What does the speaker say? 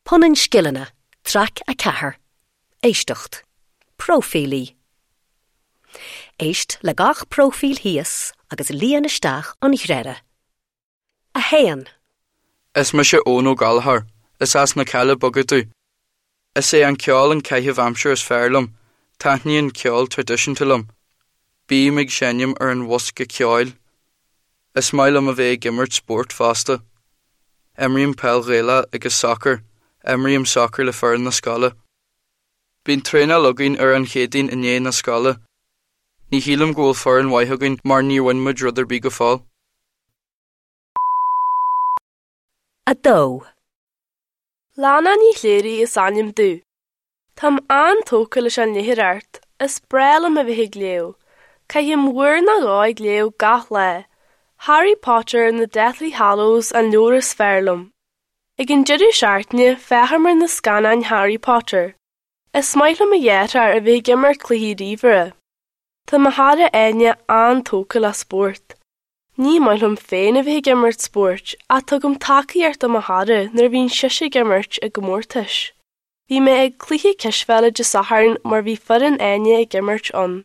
Punann Scileanna, Traic 4, Éisteacht. Próifílí. Éist le gach próifíl thíos agus líon isteach an ghreire. 1. Is mise Eoin Ó Gallchóir. Is as na Cealla Beaga domh. Is é an ceol an caitheamh aimsire is fearr liom. Taitníonn ceol traidisiúnta liom. Bím ag seinm ar an bhosca ceoil. Is maith liom a bheith ag imirt spóirt fosta. Imrím peil Ghaelach agus sacar. Imrím sacar le foireann na scoile. Bíonn traenáil againn ar an Chéadaoin i ndiaidh na scoile. Ní shílim go bhfuil foireann mhaith againn mar níor bhain muid rud ar bith go fóill. 2. Lana Ní Chléirigh is ainm domh. Táim an-tógtha leis an léitheoireacht, is breá liom a bheith ag léamh. Caithim uair nó dhó ag léamh gach lá. Harry Potter and the Deathly Hallows an leabhar is fearr liom. Ag an deireadh seachtaine, féachaim ar na scannáin Harry Potter. Is maith le mo dheartháir a bheith ag imirt cluichí ríomhaire. Tá mo chara Áine an-tógtha le spórt. Ní maith liom féin a bheith ag imirt spóirt ach tugaim tacaíocht do mo chara nuair a bhíonn sise ag imirt i gcomórtais. Bhí mé ag cluiche cispheile Dé Sathairn mar bhí foireann Áine ag imirt ann.